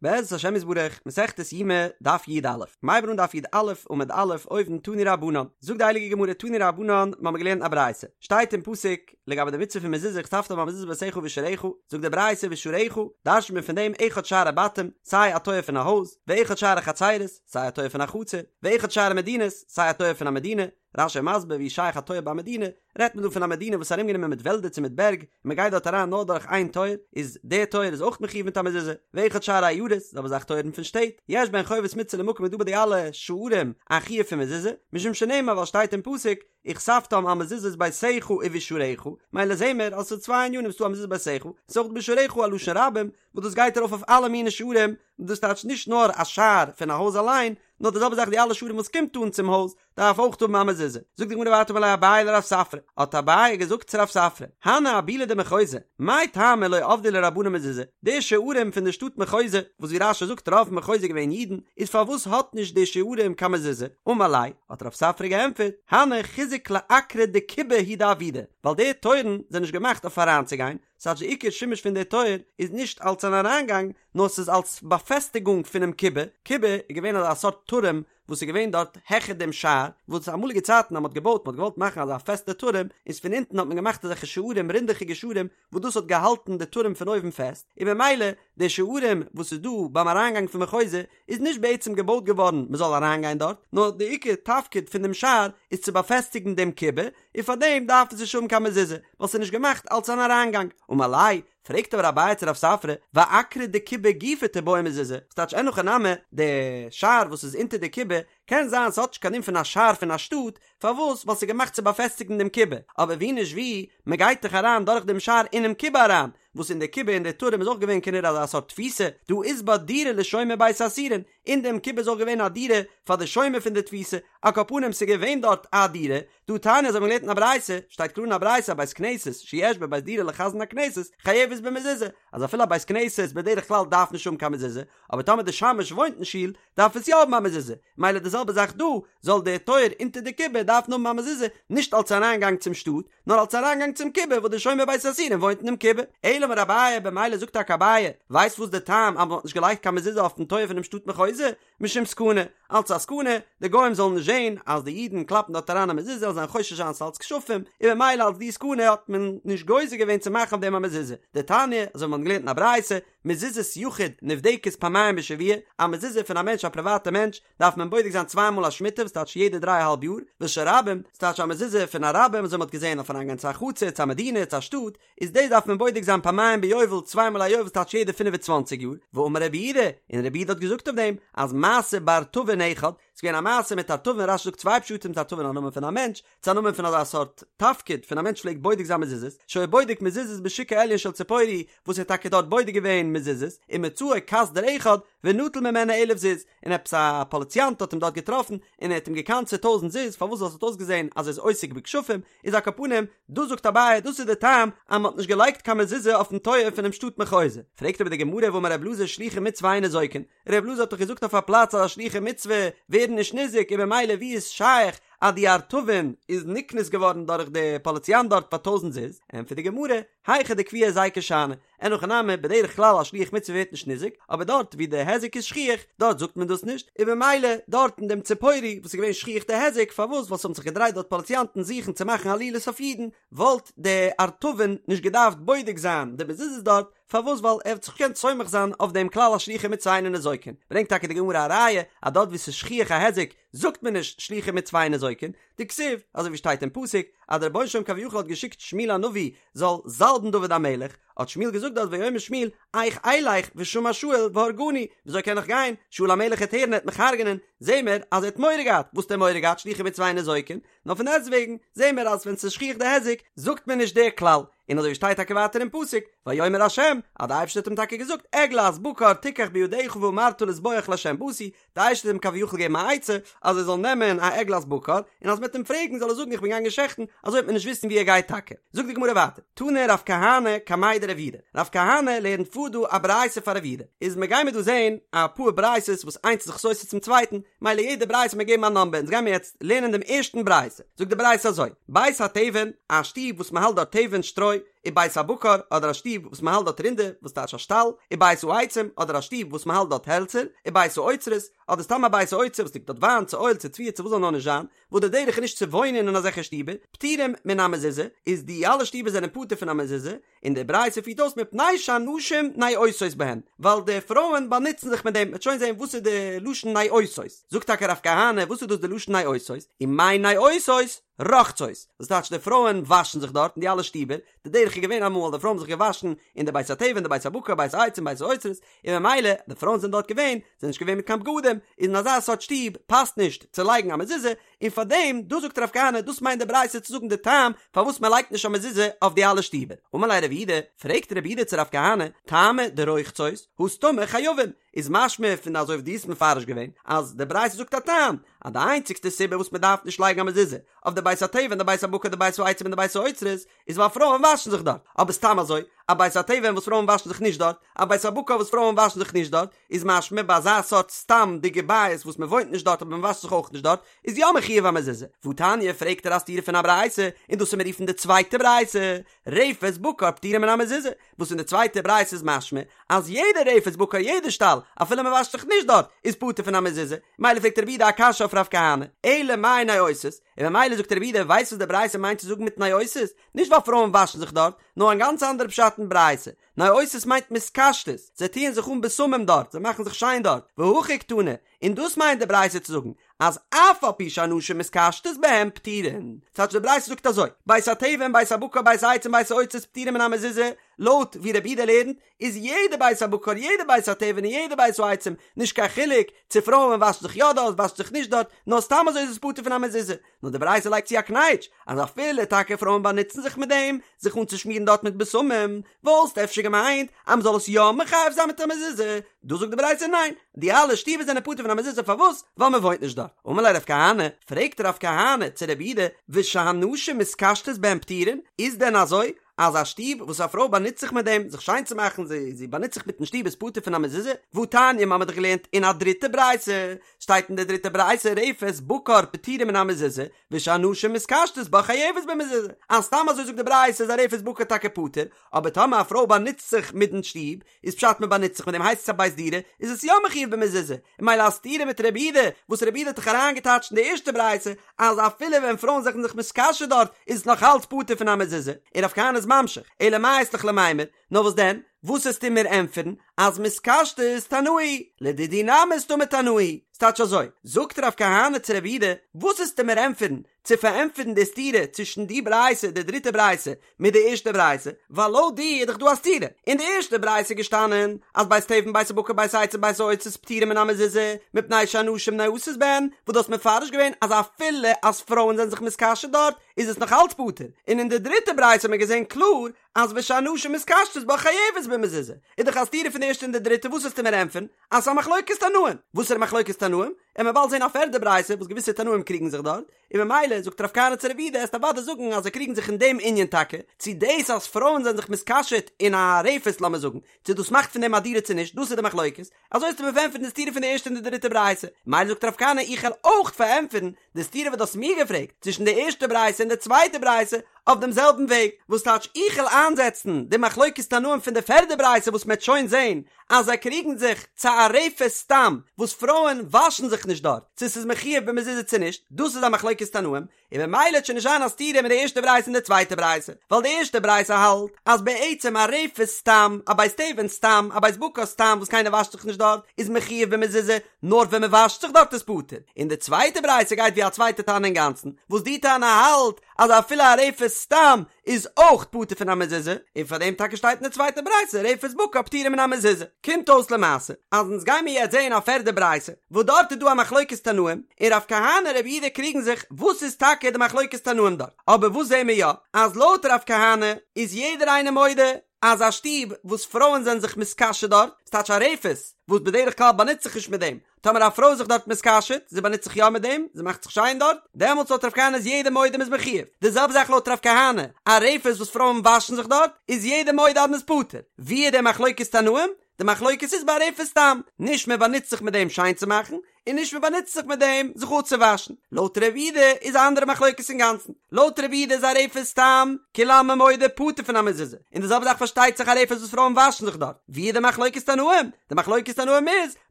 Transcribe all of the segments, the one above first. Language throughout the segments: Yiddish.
בעזרת השם יתברך, מסכת יומא, דף י"א. מ'הייבן אן דף י"א, עמוד א', אויבן, תנו רבנן. זאגט די הייליגע גמרא תנו רבנן, מ'האמיר געלערנט א ברייתא. שטייט אין פסוק, לגבי די מצוה פון מזוזה וכתבתם על מזוזות ביתך ובשעריך, זאגט די ברייתא ובשעריך, דרש'נט מען פון דעם אחד שערי בתים, סיי א טויער פון א הויז, ואחד שערי חצרות, סיי א טויער פון א חצר, ואחד שערי מדינות, סיי א טויער פון א מדינה, רש"י מסביר ווי שייך א טויער ביי א מדינה, רעדט מען דא פון א מדינה וואס איז ארומגענומען מיט וועלדער צו מיט בערג, און מען גייט דארט אריין נאר דורך איין טויער, איז דער טויער איז אויך מחויב מיט א מזוזה, ואחד שערי עיירות, זעלבע זאך טויערן פון שטעט, יש בהן חובת מצוה למקום איז דא ביי די אלע שערים א חיוב פון מזוזה, משום שנאמר ווייל שטייט אין פסוק, וכתבתם על מזוזות ביתך ובשעריך, מילא זעהן מיר אז ס'איז צוויי ענינים ס'דא א מזוזות ביתך, ס'איז אויך בשעריך א לשון רבים, וואס דאס גייט ארויף אויף אלע מיני שערים, דאס טייטש נישט נאר א שער פון א הויז אליין, נאר די זעלבע זאך די אלע שערים וואס קומט אן צום הויז, דארף אויך האבן א מזוזה. זאגט די גמרא ווייטער אמר ליה אביי לרב ספרא, האט אביי געזאגט צו רב ספרא, הני אבולי דמחוזא, מאי טעמא לא עבדי להו רבנן מזוזה, די שערים פון די שטאט מחוזא, וואס ווי רש"י זאגט רוב מחוזא איז געווען אידן, איז פארוואס האט נישט די שערים קיין מזוזה? אמר ליה, האט רב ספרא געענטפערט, הני חיזוק לאקרא דכובי הוא דעבידי, ווייל די טויערן זענען נישט געמאכט אויף אריינצוגיין, ס'טייטש די עיקר שימוש פון די טויער איז נישט אלס אן אריינגאנג, נאר ס'איז אלס באפעסטיגונג פונעם קובה, קובה איז געווען אזא סארט טורעם וואס איז געווען דארט העכער דעם שער, וואס אמאליגע צייטן אז מ'האט געבויט, מ'האט געוואלט מאכן אזא פעסטע טורעם, איז פון אונטן האט מען געמאכט אזעלכע שערים, רינדעכיגע שערים, וואס דאס האט געהאלטן די טורעם פון אויבן פעסט, און במילא די שערים וואס איז דא ביים אריינגאנג פון מחוזא איז נישט בעצם געבויט געווארן מ'זאל אריינגיין דארט, נאר די עיקר תפקיד פון דעם שער איז צו באפעסטיגן דעם קובה, און פארדעם דארף עס נישט האבן קיין מזוזה, ווייל ס'איז נישט געמאכט אלס אן אריינגאנג. אמר ליה, פרעגט אבער אביי צו רב ספרא, ואקרא דכובי גופא תיבעי מזוזה, ס'טייטש אין הכי נמי, די שער וואס איז אונטער די קובה, קען זיין ס'האט נישט קיין דין פון א שער פון א שטאט, פארוואס? ווייל ס'איז געמאכט צו באפעסטיגן דעם קובה, אבער ווי נישט ווי, מ'גייט דאך אריין דורך דעם שער אינעם קובה אריין, וואס אין די קובה אין די טורעם איז אויך געווען כנראה אזא סארט תפיסה, דהא אית בה דירה לשומר בית האסורין, אין דעם קובה איז אויך געווען א דירה פאר די שומר פון די תפיסה, על כל פנים ס'איז געווען דארט א דירה, דהא תניא אזוי האבן מיר געלערנט אין א ברייתא, שטייט קלאר אין א ברייתא א בית כנסת שיש בו בית דירה לחזן הכנסת חייבת במזוזה, אז אפילו א בית כנסת בדרך כלל דארף נישט האבן קיין מזוזה, אבער טאמער די שמש וואוינט אין שול דארף עס יא האבן א מזוזה, מילא די זעלבע זאך דא, זאל דער טויער אונטער די קובה דארפן האבן א מזוזה, נישט אלס אריינגאנג צום שטאט, נאר אלס אריינגאנג צום קובה וואס די שומר בית האסורין וואוינט אינעם קובה. אלא אמר אביי, במילא זאגט טאקע אביי, ווייסט וואס די טעם אז מען האט נישט געלייגט קיין מזוזה אויפן טויער פונעם שטאט מחוזא? משום סכנה, אלץ א סכנה, די גוים זאלן נישט זען אז די אידן קלאפן דארט אריין א מזוזה זאלן זיין חושש זיין ס'אלץ כשפים, און במילא אלץ די סכנה האט מען נישט גוזר געווען צו מאכן אויף דעם א מזוזה. דתניא, אזוי ווי מ'האט געלערנט אין א ברייתא, מזוזת יחיד נבדקת פעמיים בשבוע, א מזוזה פון א מענטש א פריוואטע מענטש, דארף מען בודק זיין צוויי מאל א שמיטה וואס טייטש יעדע דריי אהאלב יאר, ושל רבים, ס'טייטש א מזוזה פון א רבים אזוי מ'האט געזען אויף אריינגיין צו א חצר, צו א מדינה, צו א שטאט, איז דאס דארף מען בודק זיין פעמיים ביובל, צוויי מאל א יובל ס'טייטש יעדע 25 יאר, ואמר רבי יהודה, און רבי יהודה האט געזאגט אויף דעם, אז מעשה בארטבין אחד, ס'איז געווען א מעשה מיט ארטבין, רש"י זאגט צוויי פשטים צו ארטבין א נאמען פון א מענטש, צו א נאמען פון אזא סארט תפקיד פון א מענטש פלעגט בודק זיין מזוזות, שהיה בודק מזוזות בשוק העליון של ציפורי, וואס ער האט טאקע דארט בודק געווען מזוזות, ומצאו קסדור אחד, ונטל ממנו אלף זוז, און עפעס א פאליציאנט האט אים דארט געטראפן, און ער האט אים געקנס'עט טויזנט זוז, פארוואס ווייל ס'האט אויסגעזען אז ער איז עוסק בכשפים, איז על כל פנים, דאס זאגט אביי, דאס איז די טעם אז מ'האט נישט געלייגט קיין מזוזה אויפן טויער פונעם שטאט מחוזא. פרעגט אבער די גמרא והאמר ר' אלעזר שלוחי מצוה אין ניזוקין, ר' אלעזר האט דאך געזאגט אויף א פלאץ אז א שלוחי מצוה ווערן נישט ניזוק און במילא ווי איז שייך אז די ארטבין איז נקנס געווארן דורך די פאליציאנט דארט פאר טויזנט זוז, ענטפערט די גמרא, היכא דקביע היזיקא שאני, אין הכי נמי, בדרך כלל א שליח מצוה ווערט נישט ניזוק, אבער דארט ווי די היזק איז שכיח, דארט זאגט מען דאס נישט, און במילא דארט אין דעם ציפורי וואס איז געווען שכיח די היזק, פארוואס? ווייל ס'האבן זיך געדרייט דארט פאליציאנטן זוכן צו מאכן עלילות אויף אידן, וואלט די ארטבין נישט געדארפט בודק זיין די מזוזות דארט, פארוואס? ווייל ער האט זיך געקענט סומך זיין אויף דעם כלל אז שלוחי מצוה אינן ניזוקין. ברענגט טאקע די גמרא א ראיה אז דארט ווי ס'איז שכיח א היזק זאגט מען נישט שלוחי מצוה אינן ניזוקין, דכתיב, אזוי ווי שטייט אין פסוק, אז דער רבונו של עולם כביכול האט געשיקט שמואל הנביא זאל זאלבן דוד המלך, האט שמואל געזאגט דארט ויאמר שמואל, איך אלך ושמע שאול והרגני, וויאזוי קען איך גיין, שאול המלך העט הערן ער העט מיך הרג'נען, זעהן מיר אז ער האט מורא געהאט, וואס האט ער מורא געהאט שלוחי מצוה אינן ניזוקין, נאר פון דעסטוועגן זעהן מיר אז ווען ס'איז שכיח די היזק זאגט מען נישט דער כלל, און אזוי ווי שטייט טאקע ווייטער אין פסוק, ויאמר ה', אז די אייבערשטער האט אים טאקע געזאגט, עגלת בקר תיקח בידך ואמרת לזבוח לה' באתי, די אייבערשטער האט אים כביכול געגעבן א עצה אז ער זאל נעמען א עגלת בקר, און אז מ'וועט אים פרעגן זאל ער זאגן איך בין געגאנגען שעכטן, אזוי וועט מען נישט וויסן וואו ער גייט טאקע. זאגט די גמרא ווייטער, תני רב כהנא קמיה דרב יהודה, רב כהנא לערנט פאר דא א ברייתא פאר רב יהודה, איז מ'גיימיר דא זען אפאר ברייתות וואס איינס איז זיך סותר צום צווייטן, מילא יעדע ברייתא מיר געבן א נאמבער, אונז גיימיר יעצט לערנען דעם ערשטן ברייתא, זאגט די ברייתא אזוי, בית התבן, א שטוב וואס מ'האלט דארט תבן, שטרוי, ובית הבקר, אדער א שטוב וואס מען האלט דארט רינדער, וואס טייטש א שטאל, ובית העצים, אדער א שטוב וואס מען האלט דארט העלצער, ובית האוצרות, אדער סתם א בית האוצר וואס ליגט דארט וויין, צו אויל, צו תבואה, צו וואס זאל נאר נישט זיין, וואס די דרך איז נישט צו וואוינען אין אזעלכע שטיבער, פטורים מן המזוזה, איז די אלע שטיבער זענען פטור פון א מזוזה, און די ברייתא פירט אויס מפני שהנשים נאותות בהן, ווייל די פרויען באנוצן זיך מיט דעם, מ'וועט שוין זען וואס איז די לשון נאותות, זאגט טאקע רב כהנא וואס איז דאס די לשון נאותות, ומאי נאותות? רוחצות, דאס טייטש די פרויען וואשן זיך דארט אין די אלע שטיבער, די דרך איז געווען אמאל אז די פרויען האבן זיך געוואשן אין די בית התבן די בית הבקר בית העצים בית האוצרות, און ממילא די פרויען זענען דארט געווען, זענען נישט געווען מיט קיין בגדים, איז אין אזא סארט שטוב פאסט נישט צו לייגן א מזוזה, און פאר דעם, דאס זאגט רב כהנא, דאס מיינט די ברייתא צו זאגן די טעם פארוואס מען לייגט נישט א מזוזה אויף די אלע שטיבער. אמר ליה רב יהודה, פרעגט רב יהודה צו רב כהנא, טעמא דרוחצות, הא סתמא חייבין, איז משמע פון אזוי ווי דו האסט מפרש געווען, אז די ברייתא זאגט א טעם, אז די איינציגסטע סיבה וואס מען דארף נישט לייגן א מזוזה אויף די בית התבן די בית הבקר די בית העצים און די בית האוצרות, איז ווייל פרויען וואשן זיך דארט, אבער סתם אזוי, א בית התבן וואס פרויען וואשן זיך נישט דארט, א בית הבקר וואס פרויען וואשן זיך נישט דארט, איז משמע ביי אזא סארט סתם'דיגע בית וואס מען וואוינט נישט דארט אבער מען וואשט זיך אויך נישט דארט, איז יא מחויב א מזוזה. והתניא פרעגט ער א סתירה פון א ברייתא, און דאס וועט מען רופן די צווייטע ברייתא, רפת בקר פטורה מן המזוזה, וואס אין די צווייטע ברייתא איז משמע אז יעדע רפת בקר יעדע שטאל אפילו מען וואשט זיך נישט דארט איז פטור פון א מזוזה, מילא פרעגט רב יהודה א קשיא אויף רב כהנא, אלא מאי נאותות, און ממילא זאגט רב יהודה ווייסט וואס די ברייתא מיינט צו זאגן מיט נאותות? נישט ווייל פרויען וואשן זיך דארט, נאר א גאנץ אנדערע פשט אין ברייתא, נאותות מיינט מתקשטות, זיי טוען זיך אן בשמים דארט, זיי מאכן זיך שיין דארט, והכי קתני, און דאס מיינט די ברייתא צו זאגן, אז אף על פי שהנשים מתקשטות בהם פטורין. ס'טייטש די ברייתא זאגט אזוי, בית התבן בית הבקר בית העצים בית האוצרות פטורין מן המזוזה, לויט ווי רב יהודה לערנט, איז יעדע בית הבקר יעדע בית התבן און יעדע בית העצים, נישט קיין חילוק צו פרויען וואשן זיך יא דארט וואשן זיך נישט דארט, נאר סתם אזוי איז עס פטור פון א מזוזה. נאר די ברייתא לייגט צו א קנייטש, אז אפילו טאקע פרויען באנוצן זיך מיט דעם, זיך אנצושמירן דארט מיט בשמים, וואלסט אפשר געמיינט אז מ'זאל עס יא מחייב זיין מיט א מזוזה, דא זאגט די ברייתא ניין, די אלע שטיבער זענען פטור פון א מזוזה פארוואס? ווייל מ'וואוינט נישט דארט. אמר ליה רב כהנא, פרעגט רב כהנא צו רב יהודה, ושהנשים מתקשטות בהן פטורין, איז דען אזוי אז א שטוב וואס א פרוי באנוצט זיך מיט דעם זיך שיין צו מאכן, זי זי באנוצט זיך מיטן שטוב איז פטור פון א מזוזה? והתניא, מ'האמיר דאך געלערנט אין א דריטע ברייתא, שטייט אין די דריטע ברייתא רפת בקר פטורה מן המזוזה, ושהנשים מתקשטות בה חייבת במזוזה, אז סתם אזוי זאגט די ברייתא איז א רפת בקר טאקע פטור, אבער טאמער א פרוי באנוצט זיך מיטן שטוב, איז פשט מען באנוצט זיך מיט דעם הייסט עס א בית דירה, איז עס יא מחויב במזוזה, און ממילא א סתירה מיט רב יהודה, וואס רב יהודה האט דאך אריינגעטייטשט אין די ערשטע ברייתא, אז אפילו ווען פרויען זענען זיך מתקשט דארט, איז עס נאך אלץ פטור פון א מזוזה, און רב כהנא איז ממשיך, אלא מאי אית לך למימר, נאר וואס דען, וואס וועסטו מיר ענטפערן, אז מתקשטות תנאי, לדידי נמי סתמא תנאי, ס'טייטש אזוי, זאגט רב כהנא צו רב יהודה, וואס וועסטו מיר ענטפערן, צו פארענטפערן די סתירה צווישן די ברייתא, די דריטע ברייתא, מיט די ערשטע ברייתא, ווייל לויט דיר איז דאך דא א סתירה, אין די ערשטע ברייתא איז געשטאנען אז בית תבן בית הבקר בית העצים בית האוצרות פטורים מן המזוזה, מפני שהנשים נאותות בהן, וואס דו האסט מפרש געווען אז אפילו אז פרויען זענען זיך מתקשט דארט איז עס נאך אלץ פטור, און אין די דריטע ברייתא האט מען געזען קלאר אז ושהנשים מתקשטות בה חייבת במזוזה, איז דאך א סתירה פון די ערשטע און די דריטע, וואס וועסטו מיר ענטפערן? אז ס'איז א מחלוקת תנאים, וואסערע מחלוקת תנאים? וועט מען באלד זען א פערדע ברייתא וואס געוויסע תנאים קריגן זיך דארט, און ממילא זאגט רב כהנא צו רב יהודה וועסט אוודאי זאגן אז זיי קריגן זיך אין דעם ענין טאקע, צו דאס אז פרויען זענען זיך מתקשט אין א רפת לאמיר זאגן, צו דאס מאכט פון דעם א דירה צו נישט, דאס איז די מחלוקת, אזוי וועסטו מיר פארענטפערן די סתירה פון די ערשטע און די דריטע ברייתא, ממילא זאגט רב כהנא איך וועל אויך פארענטפערן די סתירה וואס דו האסט מיר געפרעגט צווישן די ערשטע ברייתא און די צווייטע ברייתא אויף דעם זעלבן וועג, וואס טייטש איך וועל איינזעצן די מחלוקת תנאים פון די פערדע ברייתא וואס מ'עט שוין זען אז זיי קריגן זיך צו א רפת סתם וואס פרויען וואשן זיך נישט דארט צו ס'איז מחויב במזוזה צו נישט, דאס איז א מחלוקת תנאים, און ממילא וועט שוין נישט זיין א סתירה מיט די ערשטע ברייתא און די צווייטע ברייתא, ווייל די ערשטע ברייתא האלט אז בעצם א רפת סתם, א בית תבן סתם, א בית בקר סתם וואס קיינער וואשט זיך נישט דארט, איז מחויב במזוזה, נאר ווען מען וואשט זיך דארט איז פטור, און די צווייטע ברייתא גייט ווי א צווייטע תנא אינגאנצן, וואס די תנא האלט אז אפילו א רפת סתם איז אויך פטור פון א מזוזה, און פאר דעם טאקע שטייט אין די צווייטע ברייתא רפת בקר פטורה מן המזוזה. קומט אויס למעשה אז אונז גיימיר יעצט זעהן א פערדע ברייתא וואס דארט איז דא א מחלוקת תנאים, און רב כהנא רב יהודה קריגן זיך וואס איז טאקע די מחלוקת תנאים דארט, אבער וואס זעהן מיר יא אז לויט רב כהנא איז יעדער איינער מודה אז א שטוב וואס פרויען זענען זיך מתקשט דארט, ס'טייטש א רפת וואס בדרך כלל באנוצט זיך נישט מיט דעם, טאמער א פרוי איז זיך דארט מתקשט, זי באנוצט זיך יא מיט דעם, זי מאכט זיך שיין דארט, דעמאלטס לויט רב כהנא איז יעדער מודה מ'איז מחויב. די זעלבע זאך לויט רב כהנא, א רפת וואס פרויען וואשן זיך דארט, איז יעדער מודה אז מ'איז פטור. ווי איז די מחלוקת תנאים? די מחלוקת איז ביי א רפת סתם, נישט מען באנוצט זיך מיט דעם שיין צו מאכן, און נישט מען באנוצט זיך מיט דעם זיך אפצואוואשן. לויט רבי יהודה איז א אנדערע מחלוקת אינגאנצן. לויט רבי יהודה איז א רפת סתם, כולי עלמא מודה פטור פון א מזוזה. און די זעלבע זאך פארשטייט זיך א רפת וואס פרויען וואשן זיך דארט. ווי איז די מחלוקת תנאים? די מחלוקת תנאים איז,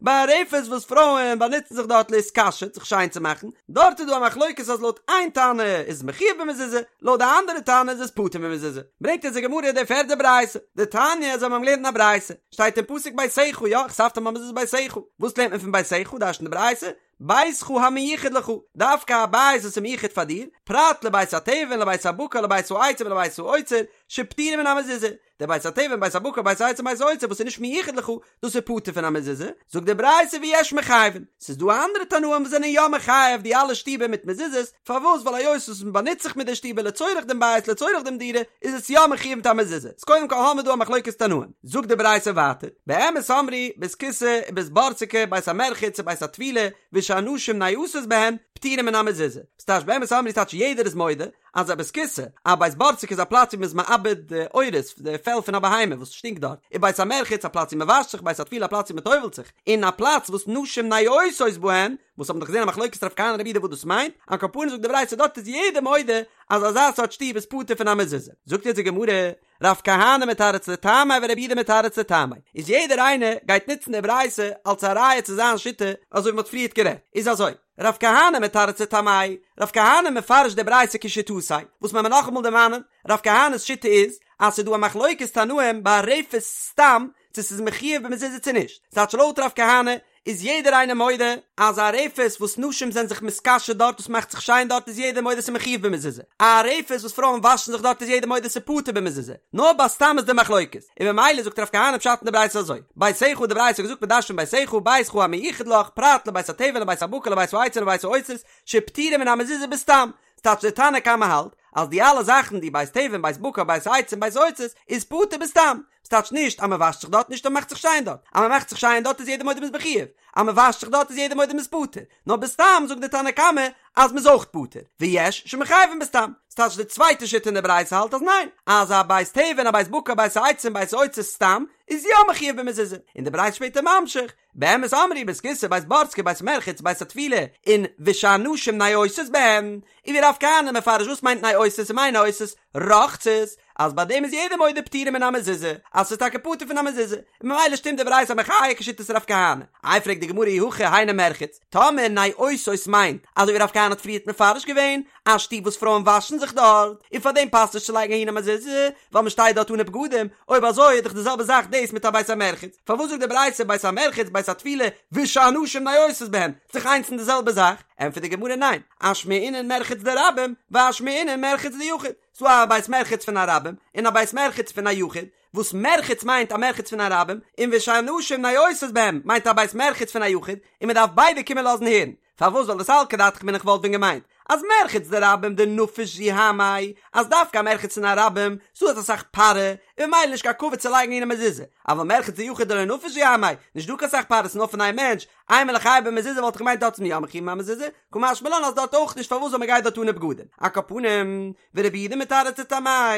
ביי א רפת וואס פרויען באנוצן זיך דארט להתקשט, זיך שיין צו מאכן, דארט איז דא א מחלוקת אז לויט איין תנא איז עס מחויב במזוזה, לויט די אנדערע תנא איז עס פטור במזוזה. ברענגט אונז די גמרא די פערדע ברייתא, דתניא אזוי האבן מיר געלערנט אין א ברייתא, שטייט אין פסוק ביתך, יא, וכתבתם על מזוזות ביתך, וואס לערנט מען פון ביתך, דרש'נט די ברייתא, ביתך המיוחד לך, דווקא א בית וואס איז מיוחד פאר דיר, פרט לבית התבן לבית הבקר לבית העצים ולבית האוצר, שפטורים מן המזוזה, דער בית התבן בית הבקר בית העצים בית האוצר וואס איז נישט מיוחד לך, דאס איז פטור פון א מזוזה, זאגט די ברייתא ויש מחייבין, ס'איז דא אנדערע תנאים וואס זענען יא מחייב די אלע שטיבער מיט מזוזות, פארוואס ווייל היות וואס מען באנוצט זיך מיט די שטיבער לצורך דעם בית לצורך דעם דירה איז עס יא מחויב מיט א מזוזה, איז קודם כל האמיר דא א מחלוקת תנאים, זאגט די ברייתא ווייטער, באמת אמרו, בית הכסא ובית בורסקי בית המרחץ ובית הטבילה ושהנשים נועשות בהן פטורים מן המזוזה, ס'טייטש באמת אמרו ס'טייטש יעדער איז מודה אז א בית כסא, א בית בורסקי איז א פלאץ ווי מ'איז מעבד די עורות, די פעל פון א בהמה וואס שטינקט דארט, און בית המרחץ א פלאץ ווי מ'וואשט זיך, בית הטבילה א פלאץ ווי מ'טובל'ט זיך, און א פלאץ וואס נשים נועשות בהן, וואס האבן דאך געזען א מחלוקת רב כהנא רבי יהודה וואס דאס מיינט, על כל פנים זאגט די ברייתא דארט איז יעדער מודה אז אזא סארט שטוב איז פטור פון א מזוזה. זאגט יעצט די גמרא, רב כהנא מתרץ לטעמיה ורבי יהודה מתרץ לטעמיה, איז יעדער איינער גייט נוצן די ברייתא אלס א ראיה צו זיין שיטה, אזוי ווי מ'האט פריערט גערעדט, איז אזוי, רב כהנא מתרץ לטעמיה, רב כהנא מפרש די ברייתא כשיטתיה, וואס מען מיר נאכאמאל דערמאנען, רב כהנא'ס שיטה איז, אז ס'איז דא א מחלוקת תנאים ביי א רפת סתם, צו ס'איז מחויב במזוזה צו נישט, ס'טייטש לויט רב כהנא איז יעדער איינער מודה אז א רפת וואס נשים זענען זיך מתקשט דארט וואס מאכט זיך שיין דארט איז יעדער מודה ס'איז מחויב במזוזה, א רפת וואס פרויען וואשן זיך דארט איז יעדער מודה ס'איז פטור במזוזה, נאר ביי סתם איז די מחלוקת, און ממילא זאגט רב כהנא פשט אין די ברייתא אזוי, ביתך די ברייתא האט געזאגט מ'דרש'נט ביתך, ביתך המיוחד לך, פרט לבית התבן לבית הבקר לבית העצים לבית האוצרות, שפטורים מן המזוזה בסתם, ס'טייטש די תנא קמא האלט אז די אלע זאכן די בית תבן בית בקר בית העצים בית האוצרות איז פטור בסתם, ס'טייטש נישט אז מ'וואשט זיך דארט נישט אז מ'מאכט זיך שיין דארט, אז מ'מאכט זיך שיין דארט איז יעדער מודה מ'איז מחויב, אז מ'וואשט זיך דארט איז יעדער מודה מ'איז פטור, נאר בסתם זאגט די תנא קמא אז מ'איז אויך פטור, ויש שמחייבין בסתם, ס'טייטש די צווייטע שיטה אין די ברייתא האלט אז ניין, אז א בית תבן א בית בקר בית העצים בית האוצרות סתם איז יא מחויב במזוזה, און די ברייתא שפעטער ממשיך, באמת אמרו בית כסא בית בורסקי בית מרחץ בית הטבילה און ושהנשים נועשות בהם, און ווי רב כהנא מפרש וואס מיינט נועשות ומאי נועשות רוחצות, אז ביי דעם איז יעדער מודה פטורים מן המזוזה, אז ס'איז טאקע פטור פון א מזוזה, און ממילא שטימט די ברייתא א מחיה כשיטת רב כהנא. איי פרעגט די גמרא אי הכי היינו מרחץ, טאמער נועשות מיינט אזוי ווי רב כהנא האט פריערט מפרש געווען, א שטוב וואס פרויען וואשן זיך דארט, און פאר דעם פאסט נישט צו לייגן אהין א מזוזה, ווייל מען שטייט דארט אנע בגדים, אויב אזוי איז דאך די זעלבע זאך דאס מיט א בית המרחץ, פארוואס זאגט די ברייתא בית המרחץ בית הטבילה ושהנשים נועשות בהן, ס'איז דאך איינס און די זעלבע זאך, ענטפערט די גמרא ניין, אשמעינן מרחץ דרבים ואשמעינן מרחץ דיחיד, ס'דא א בית מרחץ פון א רבים און א בית מרחץ פון א יחיד, וואס מרחץ מיינט א מרחץ פון א רבים, און ושהנשים נועשות בהם מיינט א בית מרחץ פון א יחיד, און מען דארף ביידע קומען לאזן הערן. פארוואס ווייל דסלקא דעתך אמינא איך וואלט ווען געמיינט אז מרחץ דרבים דנפיש זוהמיה אז דווקא א מרחץ פון א רבים ס'דא אסאך פארע און ממילא נישט קיין כבוד צו לייגן אהין א מזוזה אבל מרחץ דיחיד דלא נפיש זוהמיה נישט דא קיין סאך פארע ס'נאר פון איין מענטש אימא ליחייב במזוזה וואלט איך געמיינט דארט איז מען יא מחויב מיט א מזוזה קא משמע לן אז דארט אויך נישט פארוואס ווייל מ'גייט דארט אנע בגדים על כל פנים ורבי יהודה מתרץ לטעמיה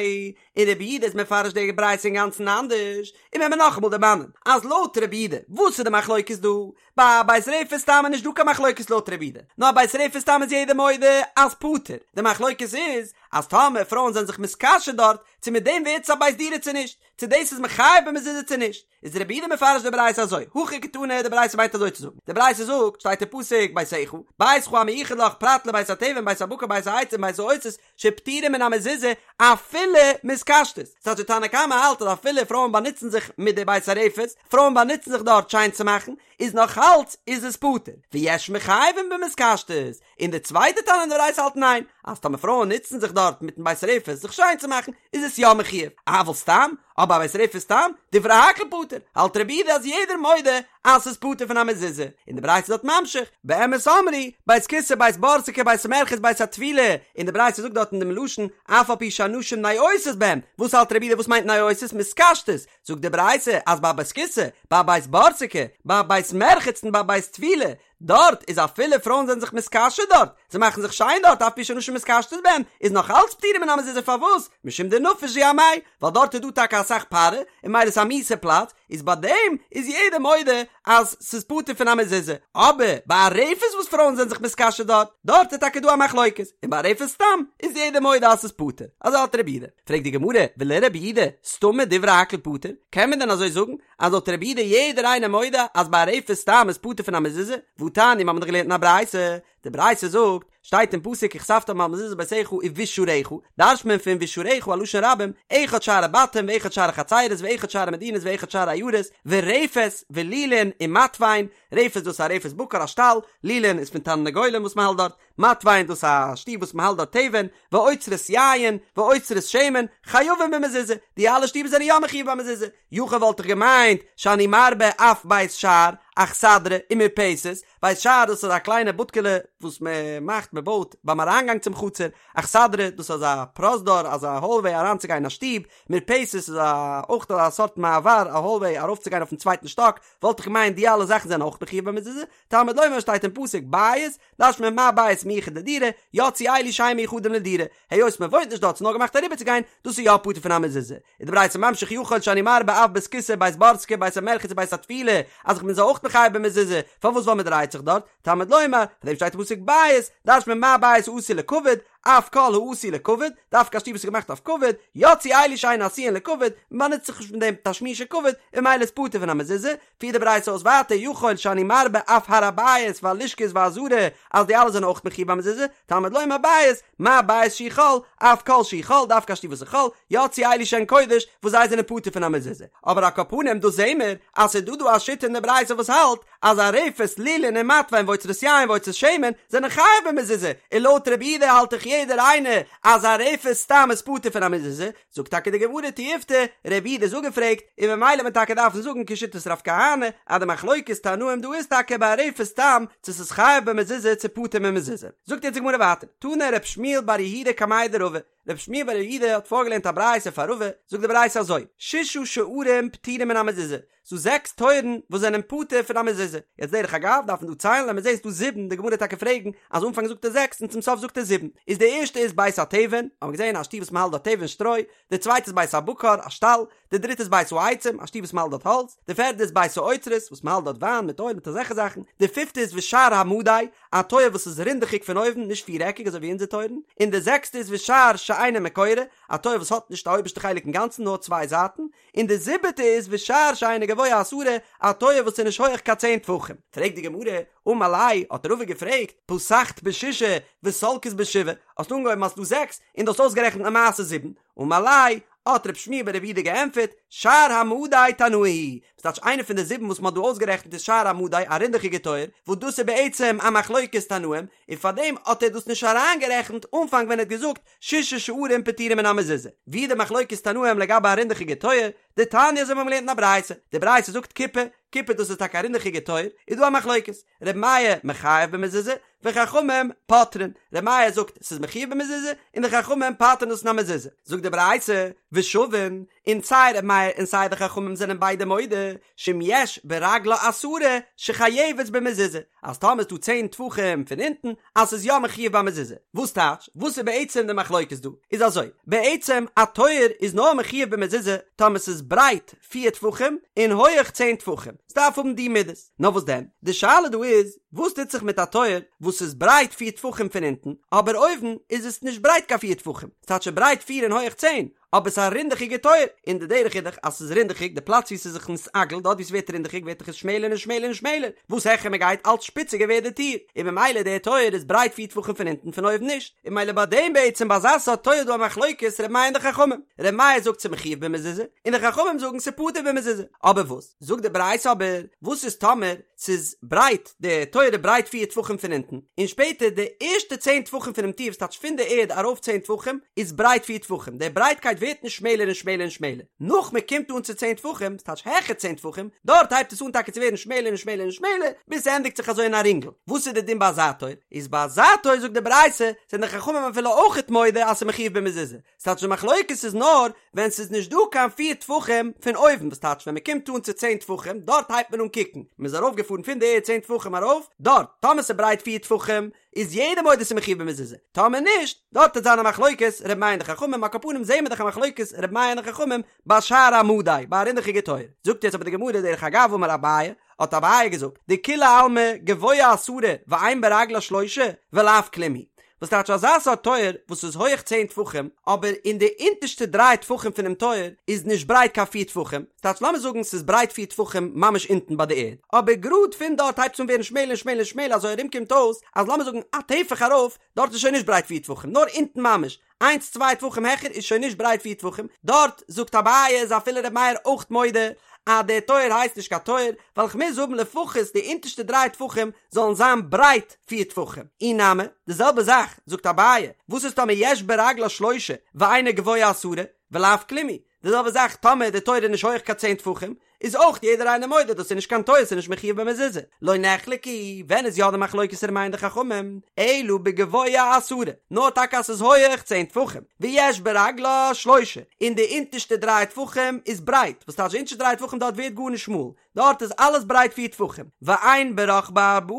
און רבי יהודה איז מפרש די ברייתא אינגאנצן אנדערש און ווען מיר נאכאמאל דערמאנען אז לויט רבי יהודה וואס איז די מחלוקת דא ביי א בית רפת סתם איז נישט דא קיין מחלוקת לויט רבי יהודה, נאר א בית רפת סתם איז יעדער מודה אז פטור, די מחלוקת איז אז טאמער פרויען זענען זיך מתקשט דארט, צו מיט דעם ווערט עס א בית דירה צו נישט, צו דאס איז מחייב במזוזה צו נישט, איז רבי יהודה מפרש די ברייתא אזוי, הכי קתני די ברייתא מיינט אזוי צו זאגן, די ברייתא זאגט, שטייט אין פסוק ביתך, ביתך המיוחד לך פרט לבית התבן בית הבקר בית העצים בית האוצרות, שפטורים מן המזוזה אפילו מתקשטות, ס'טייטש די תנא קמא האלט אז אפילו פרויען באנוצן זיך מיט די בית הרפת, פרויען באנוצן זיך דארט שיין צו מאכן, איז נאך אלץ איז עס פטור, ויש מחייבים במתקשטות, און די צווייטע תנא אין די ברייתא האלט ניין, אז טאמער פרויען נוצן זיך דארט מיטן בית הרפת זיך שיין צו מאכן, איז עס יא מחויב, אבל סתם, אבער א בית רפת סתם, דברי הכל פטור, האלט רבי יהודה אז יעדער מודה אז ס'איז פטור פון א מזוזה, און די ברייתא איז דארט ממשיך, באמת אמרו, בית כסא בית בורסקי בית מרחץ בית הטבילה, און די ברייתא זאגט דארט אין דעם לשון, אף על פי שהנשים נועשות בהם, וואס האלט רבי יהודה וואס מיינט נועשות? מתקשטות, זאגט די ברייתא אז ביי בית כסא, ביי בית בורסקי, ביי בית מרחץ און ביי בית טבילה, דארט איז אפילו פרויען זענען זיך מתקשט דארט, זיי מאכן זיך שיין דארט אף על פי שנשים מתקשטות בהן, איז נאך אלץ פטורים מן המזוזה פארוואס? משום דנפיש זוהמייהו, ווייל דארט איז דא טאקע אסאך פארע, און ממילא איז א מיאוסע פלאץ, איז ביי דעם איז יעדער מודה אז ס'איז פטור פון א מזוזה, אבער ביי א רפת וואס פרויען זענען זיך מתקשט דארט, דארט איז טאקע דא א מחלוקת, און ביי א רפת סתם איז יעדער מודה אז ס'איז פטור, אזוי האלט רבי יהודה. פרעגט די גמרא, ולרבי יהודה, סתמא דברי הכל פטור, קען מען דען אזוי זאגן אז לויט רבי יהודה יעדער איינער מודה אז ביי א רפת סתם איז פטור פון א מזוזה? והתניא מ'האמיר דאך געלערנט אין א ברייתא, די ברייתא זאגט, שטייט אין פסוק וכתבתם על מזוזות ביתך ובשעריך, דרש'ט מען פון ובשעריך א לשון רבים, אחד שערי בתים ואחד שערי חצרות ואחד שערי מדינות ואחד שערי עיירות, ורפת ולולין ומתבן, רפת דאס איז א רפת בקר א שטאל, לולין איז פון תרנגולים וואס מען האלט דארט, מתבן דאס איז א שטוב וואס מען האלט דארט תבן, ואוצרות יין, ואוצרות שמן, חייבים במזוזה, די אלע שטובער זענען יא מחויב במזוזה, יכול וואלט איך געמיינט שאני מרבה אף בית שער, אכסדרה, ומרפסת, בית שער דאס איז א קליינע בודקעלע וואס מען מאכט מען בויט ביים אריינגאנג צום חצר, אכסדרה דאס איז אזא פרוזדור אזא האלוועי אריינצוגיין אין א שטוב, מרפסת איז א אויך א סארט מעבר א האלוועי ארויפצוגיין אויפן צווייטן שטאק, וואלט איך געמיינט די אלע זאכן זענען אויך מחויב במזוזה, תלמוד לומר שטייט אין פסוק בית, דרש'ט מען מה בית מיוחד לדירה, יצאו אלו שאין מיוחדים לדירה, היות מען וואוינט נישט דארט ס'איז נאר געמאכט אריבערצוגיין, דאס איז יא פטור פון א מזוזה. איז די ברייתא ממשיך יכול שאני מרבה אף בית כסא בית בורסקי בית המרחץ ובית הטבילה, אז איך בין זיי אויך מחייב במזוזה, פארוואס ווייל מען דרייט זיך דארט, תלמוד לומר, פאר דעם שטייט אין פסוק בית, דרש'ט מען מה בית העשוי לכבוד, אף כל העשוי לכבוד, דווקא א שטוב וואס איז געמאכט אויף כבוד, יצאו אלו שאין עשויין לכבוד, מען באנוצט זיך נישט מיט דעם תשמישי כבוד, און ממילא איז פטור פון א מזוזה, פירט די ברייתא אויס ווייטער יכול שאני מרבה אף הר הבית והלשכות והעזרה אז די אלע זענען אויך מחויב במזוזה, תלמוד לומר בית, מה בית שהוא חול, אף כל שהוא חול, דווקא א שטוב וואס איז חול, יצאו אלו שהן קודש, וואס זיי זענען פטור פון א מזוזה. אבער על כל פנים דא זעהן מיר אז ס'איז דא דא א שיטה אין די ברייתא וואס האלט אז א רפת, לולין און מתבן ואוצרות יין ואוצרות שמן זענען חייב במזוזה, און לויט רבי יהודה האלט דאך יעדער איינער אז א רפת סתם איז פטור פון א מזוזה, זאגט טאקע די גמרא תיובתא, רבי יהודה איז אפגעפרעגט, און ממילא וועט מען טאקע דארפן זאגן כשיטת רב כהנא, אז די מחלוקת תנאים דא איז טאקע ביי א רפת סתם, צו ס'איז חייב במזוזה צו פטור ממזוזה. זאגט יעצט די גמרא ווייטער, תנא רב שמואל בר יהודה קמיה דרבא, רב שמואל בר יהודה האט פארגעלערנט א ברייתא פאר רבא, זאגט די ברייתא אזוי, ששה שערים פטורים מן המזוזה, ס'דא זעקס טויערן וואס זענען פטור פון א מזוזה. יעצט דרך אגב דארף מען דא ציילן לאמיר זעהן ס'דא זיבן, די גמרא וועט טאקע פרעגן אז אנפאנג זאגט ער זעקס און צום סוף זאגט ער זיבן. איז די ערשטע איז בית התבן, האבן מיר געזעהן א שטוב וואס מ'האלט דארט תבן שטרוי, די צווייטע איז בית הבקר, א שטאל, די דריטע איז בית העצים, א שטוב וואס מ'האלט דארט האלץ, די פערדע איז בית האוצרות, וואס מ'האלט דארט וויין מיט אויל מיט אזעלכע זאכן, די פיפטע איז ושער המדי, א טויער וואס איז רינדעכיג פון אויבן, נישט פירעקיג אזוי ווי אונזער טויערן, און די זעקסטע איז ושער שאינו מקורה, א טויער וואס האט נישט א אויבערשטע חלק אינגאנצן נאר צוויי זייטן, און די זיבעטע איז ושער שאינו גבוה עשרה, א טויער וואס איז נישט הויעך קיין צען טפחים. פרעגט די גמרא, אמר ליה, האט רבא געפרעגט, פתחת בשישה וסלקת בשבעה, האסט אנגעהויבן אז ס'דא זעקס, און דו האסט אויסגערעכנט למעשה זיבן, אמר ליה, האט רב שמואל בר רב יהודה געענטפערט, שער המדי תנאי היא, וואס טייטש איינע פון די זיבן וואס מ'האט דא אויסגערעכנט איז שער המדי, א רינדעכיגע טויער, וואס דאס איז בעצם א מחלוקת תנאים, און פארדעם האט ער דאס נישט אריינגערעכנט אנפאנג ווען ער האט געזאגט ששה שערים פטורים מן המזוזה, ווי די מחלוקת תנאים לגבי א רינדעכיגע טויער, דתניא אזוי האבן מיר געלערנט אין א ברייתא, די ברייתא זאגט כיפה, כיפה דאס איז טאקע א רינדעכיגע טויער, איז דא א מחלוקת, ר' מאיר מחייב במזוזה, וחכמים פוטרין, ר' מאיר זאגט ס'איז מחויב במזוזה, און די חכמים פטר'ן דאס פון א מזוזה, זאגט די ברייתא, ושווין, און סיי ר' מאיר און סיי די חכמים זענען ביידע מודה, שאם יש ברגלה עשרה שחייבת במזוזה, אז טאמער איז דא צען טפחים פון אונטן, אז ס'איז יא מחויב במזוזה. וואס טייטש? וואס איז בעצם די מחלוקת דא? איז אזוי, בעצם א טויער איז נאר מחויב במזוזה טאמער ס'איז ברייט פיר טפחים און הויעך צען טפחים, ס'דארף האבן די מידות. נאר וואס דען? די שאלה דא איז, וואס טוט זיך מיט א טויער וואס איז ברייט פיר טפחים פון אונטן, אבער אויבן איז עס נישט ברייט קיין פיר טפחים, ס'טייטש ברייט פיר און הויעך צען, אבער ס'איז א רינדעכיגע טויער, און די דרך איז דאך אז ס'איז רינדעכיג, די פלאץ וואו ס'איז זיך נתעגל, דארט וואו ס'ווערט רינדעכיג ווערט דאך עס שמעלער און שמעלער און שמעלער, וואס העכער מ'גייט אלץ שפיציגער ווערט די טיר, און ממילא דער טויער איז ברייט פיר טפחים פון אונטן פון אויבן נישט, און ממילא ביי דעם בעצם ביי אזא סארט טויער איז דא א מחלוקת ר' מאיר און די חכמים, ר' מאיר זאגט ס'איז מחויב במזוזה, און די חכמים זאגן ס'איז פטור במזוזה, אבער וואס זאגט די ברייתא אבער, וואס איז טאמער ס'איז ברייט, די טויער איז ברייט פיר טפחים פון אונטן, און שפעטער די ערשטע צען טפחים פונעם טיר, וואס טייטש פון די ערד ארויף צען טפחים, איז ברייט פיר טפחים, די ברייטקייט ווערט נישט שמעלער און שמעלער און שמעלער, נאך מען קומט אן צו צען טפחים, וואס טייטש העכער צען טפחים, דארט הייבט עס אן טאקע צו ווערן שמעלער און שמעלער און שמעלער, ביז ס'ענדיגט זיך אזוי אין א רינגל. וואס איז די דין ביי אזא טויער? איז ביי אזא טויער זאגט די ברייתא, זענען די חכמים אפילו אויכעט מודה אז ס'איז מחויב במזוזה, ס'טייטש די מחלוקת איז נאר ווען ס'איז נישט דא קיין פיר טפחים פון אויבן וואס טייטש ווען מ'קומט אן צו צען טפחים דארט הייבט מען אן קוקן מ'איז ארויף געפארן. ארויפגעפארן פון די ערד צען טפחים ארויף, דארט, טאמער ס'איז ברייט פיר טפחים, איז יעדער מודה ס'איז מחויב במזוזה, טאמער נישט, דארט וועט זיין א מחלוקת ר' מאיר און די חכמים, על כל פנים זעהן מיר דאך א מחלוקת ר' מאיר און די חכמים ביי שער המדי, ביי א רינדעכיגע טויער. זאגט יעצט אבער די גמרא דרך אגב אמר אביי, האט אביי געזאגט, דכולי עלמא גבוה עשרה ואין ברגלה שלושה ולאו כלום הוא, וואס טייטש אזא סארט טויער וואס איז הויעך צען טפחים אבער אין די אונטערשטע דריי טפחים פונעם טויער איז נישט ברייט קיין פיר טפחים, ס'טייטש לאמיר זאגן ס'איז ברייט פיר טפחים ממש אונטן ביי די ערד, אבער גראד פון דארט הייבט עס אן ווערן שמעלער און שמעלער און שמעלער אזוי ארום קומט אויס אז לאמיר זאגן א טפח ארויף דארט איז שוין נישט ברייט פיר טפחים נאר אונטן ממש איינס צוויי טפחים העכער איז שוין נישט ברייט פיר טפחים, דארט זאגט אביי איז אפילו ר' מאיר אויך מודה אז דער טויער הייסט נישט קיין טויער, ווייל כ'מוז האבן לפחות די אונטערשטע דריי טפחים זאלן זיין ברייט פיר טפחים. אי נמי, די זעלבע זאך זאגט אביי, וואס איז טאמער יש ברגלה שלושה ואינה גבוה עשרה, ולאו כלום הוא, די זעלבע זאך טאמער די טויער איז נישט הויעך קיין צען טפחים, איז אויך יעדער איינער מודה דאס איז נישט קיין טויער ס'איז נישט מחויב במזוזה. לא נחלקו, ווען איז יא די מחלוקת ר' מאיר און די חכמים? אלא בגבוה עשרה, נאר טאקע אז ס'איז הויעך צען טפחים, ויש ברגלה שלושה, און די אונטערשטע דריי טפחים איז ברייט, וואס טייטש די אונטערשטע דריי טפחים דארט ווערט גארנישט שמאל, דארט איז אלעס ברייט פיר טפחים, ואין ברחבה ארבעה,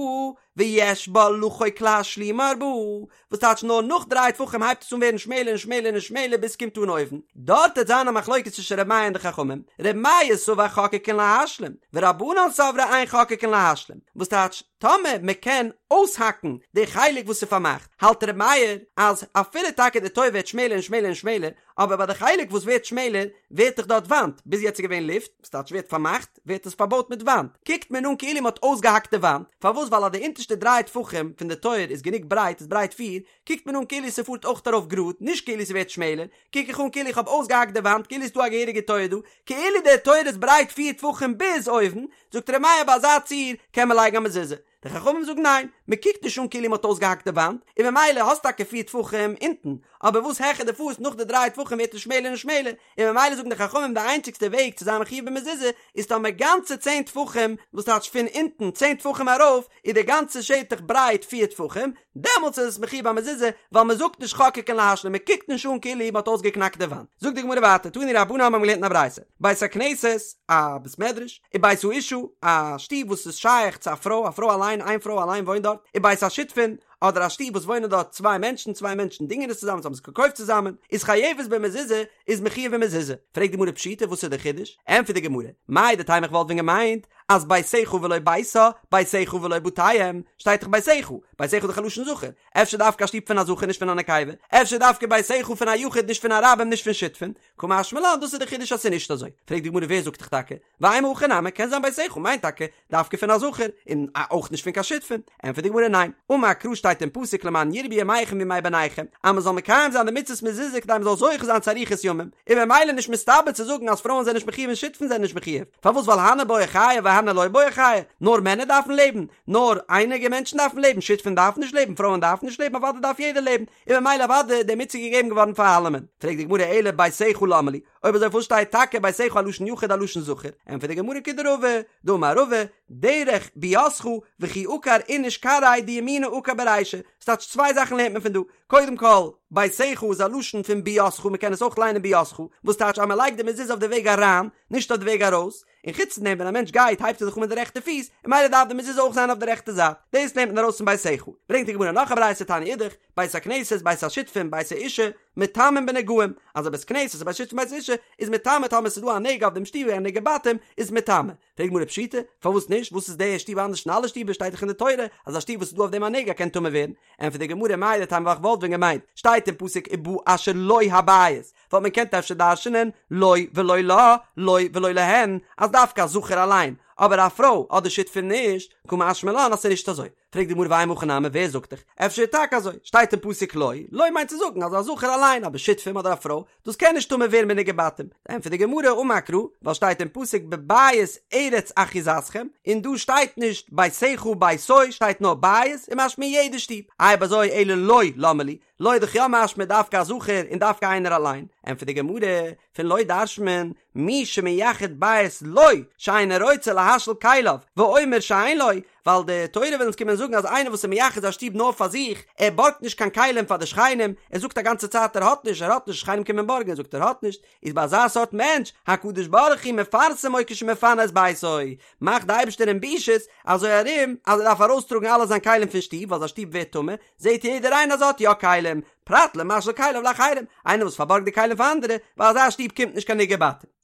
ויש בה לחוק להשלימה ארבעה, וואס טייטש נאר נאך דריי טפחים הייבט עס אן ווערן שמעלער און שמעלער און שמעלער ביז ס'קומט אן אויבן, דארט וועט זיין א מחלוקת צווישן ר' מאיר און די חכמים, ר' מאיר סבר חוקקין להשלים, ורבנן סברי אין חוקקין להשלים, וואס טייטש טאמער מ'קען אויסהאקן די חלק וואס איז פארמאכט, האלט ר' מאיר אז אפילו טאקע די טויער ווערט שמעלער און שמעלער און שמעלער, אבער ביי די חלק וואס ווערט שמעלער ווערט דאך דארט וואנט, ביז יעצט איז געווען לופט, וואס טייטש ווערט פארמאכט, ווערט עס פארבויט מיט וואנט, קוקט מען אן כאילו מ'האט אויסגעהאקט די וואנט, פארוואס ווייל אז די אונטערשטע דריי טפחים פון די טויער איז גענוג ברייט איז ברייט פיר, קוקט מען אן כאילו ס'פארט אויך ארויף גראד, נישט כאילו ס'ווערט שמעלער, קוק איך אן כאילו איך האב אויסגעהאקט די וואנט כאילו ס'איז דא א געהעריגע טויער דא, כאילו די טויער איז ברייט פיר טפחים ביז אויבן, זאגט ר' מאיר ביי אזא ציור קען מען לייגן א מזוזה. די חכמים זאגן ניין, מען קוקט נישט אן כאילו מען האט אויסגעהאקט די וואנט, און ממילא האסט טאקע פיר טפחים אונטן, אבער וואס העכער דו פארסט נאך די דריי טפחים ווערט עס שמעלער און שמעלער, און ממילא זאגן די חכמים די איינציגסטע וועג צו זיין מחויב במזוזה איז טאמער גאנצע צען טפחים, וואס טייטש פון אונטן צען טפחים ארויף איז די גאנצע שטח ברייט פיר טפחים, דעמאלטס איז עס מחויב במזוזה, ווייל מען זאגט נישט חוקקין להשלים, מען קוקט נישט אן כאילו מען האט אויסגעקנאקט די וואנט. זאגט די גמרא ווייטער, תנו רבנן האבן געלערנט אין א ברייתא, בית הכנסת, א בית מדרש, ובית האשה, א שטוב וואס איז שייך צו א פרוי, א פרוי אליין, איין פרוי אליין וואוינט דארט, ובית השותפין, אדער א שטוב וואס וואוינען דארט צוויי מענטשן, צוויי מענטשן דינגען עס צוזאמען, זיי האבן עס געקויפט צוזאמען, איז חייבת במזוזה, איז מחויב במזוזה. פרעגט די גמרא פשיטא וואס איז די חידוש? ענטפערט די גמרא, מהו דתימא איך וואלט ווען געמיינט אז ביתך ולא ביתה, ביתך ולא בתיהם, שטייט דאך ביתך, ביתך איז דאך א לשון זכר, אפשר דווקא א שטוב פון א זכר נישט פון א נקבה, אפשר דווקא ביתך פון א יחיד נישט פון א רבים נישט פון שותפין, קא משמע לן דאס איז די חידוש אז ס'איז נישט אזוי. פרעגט די גמרא ווער זאגט דיך טאקע? ואימא הכי נמי קען זיין ביתך מיינט טאקע דווקא פון א זכר און אויך נישט פון קיין שותפין. ענטפערט די גמרא ניין, אמר קרא שטייט אין פסוק למען ירבו ימיכם וימי בניכם אז מ'זאל מקיים זיין די מצות מזוזה כדי מ'זאל זוכה זיין צו אריכות ימים, איז ממילא נישט מסתבר צו זאגן אז פרויען זענען נישט מחויב און שותפין זענען נישט מחויב, פארוואס ווייל הני בעו חיי והני לא בעו חיי, נאר מענער דארפן לעבן, נאר אייניגע מענטשן דארפן לעבן, שותפין דארפן נישט לעבן, פרויען דארפן נישט לעבן, אוודאי דארף יעדער לעבן, און ממילא אוודאי איז די מצוה געגעבן געווארן פאר אלעמען. פרעגט די גמרא אלא ביתך למה לי, אויב אזוי פארוואס שטייט טאקע ביתך א לשון יחיד א לשון זכר? ענטפערט די גמרא כדרבא, דאמר רבא, דרך ביאתך וכי עקר איניש כרעיה דימינא עקר ברישא, ס'טייטש צוויי זאכן לערנט מען פון דא, קודם כל, ביתך איז א לשון פון ביאתך, מ'קען עס אויך ליינען ביאתך, וואס טייטש אז מ'לייגט די מזוזה אויף די וועג אריין, נישט אויף די וועג ארויס, און חוץ פון דעם ווען א מענטש גייט הייבט ער זיך אן מיט די רעכטע פיס, און ממילא דארף די מזוזה אויך זיין אויף די רעכטע זייט, דאס לערנט מען ארויס פון ביתך. ברענגט די גמרא נאך א ברייתא תניא אידך, בית הכנסת בית השותפין בית האשה מטמאין בנגעים, אז א בית כנסת א בית שותפין בית האשה איז מטמא טאמער ס'איז דא א נגע אויף דעם שטוב א נגעי בתים איז מטמא. פרעגט די גמרא פשיטא, פארוואס נישט, וואס איז די שטוב אנדערש פון אלע שטובער שטייט דאך אין די תורה אז א שטוב וואס איז דא אויף דעם א נגע קען טמא ווערן, ענטפערט די גמרא מהו דתימא ווייל כ'וואלט ווען געמיינט שטייט אין פסוק ובא אשר לו הבית וואלט מען געקענט אפשר דרש'נען לו ולא לה, לו ולא להן, אז דווקא א זכר אליין, אבער א פרוי אדער שותפים נישט, קא משמע לן אז ס'איז נישט אזוי. פרעגט די גמרא ואימא הכי נמי ווער זאגט דיך? אפשר איז טאקע אזוי, שטייט אין פסוק לו, לו מיינט צו זאגן אז א זכר אליין, אבער שותפים אדער א פרוי, דאס קען נישט טמא ווערן בנגעי בתים. ענטפערט די גמרא אמר קרא, ווייל שטייט אין פסוק בבית ארץ אחוזתכם, און דא שטייט נישט ביתך ביתו, שטייט נאר בית, איז משמע יעדע שטוב. אויב אזוי אלא לו למה לי, לו איז דאך יא משמע דווקא א זכר און דווקא איינער אליין, ענטפערט די גמרא, פון לו דרש'נט מען, מי שמייחד בית לו שאינו רוצה להביא. להשאיל כליו, ואומר שאין לו, ווייל די תורה וויל אונז קומען זאגן אז איינער וואס איז מייחד זיין שטוב נאר פאר זיך, ער בארגט נישט קיין כלים פאר די שכנים, ער זאגט א גאנצע צייט ער האט נישט, ער האט נישט, שכנים קומען בארגן, ער זאגט ער האט נישט, איז ביי אזא סארט מענטש, הקדוש ברוך הוא מפרסמו כשמפנה את ביתו, מאכט די אייבערשטער אים בושות, אזוי ארום אז ער דארף ארויסטראגן אלע זיין כלים פון שטוב, ווייל זיין שטוב ווערט טמא, זעט יעדער איינער אז ער האט יא כלים, פרט למשאיל כליו לאחרים, איינער וואס פארבארגט די כלים פאר אנדערע, ביי אזא שטוב קומט נישט קיין נגעי בתים.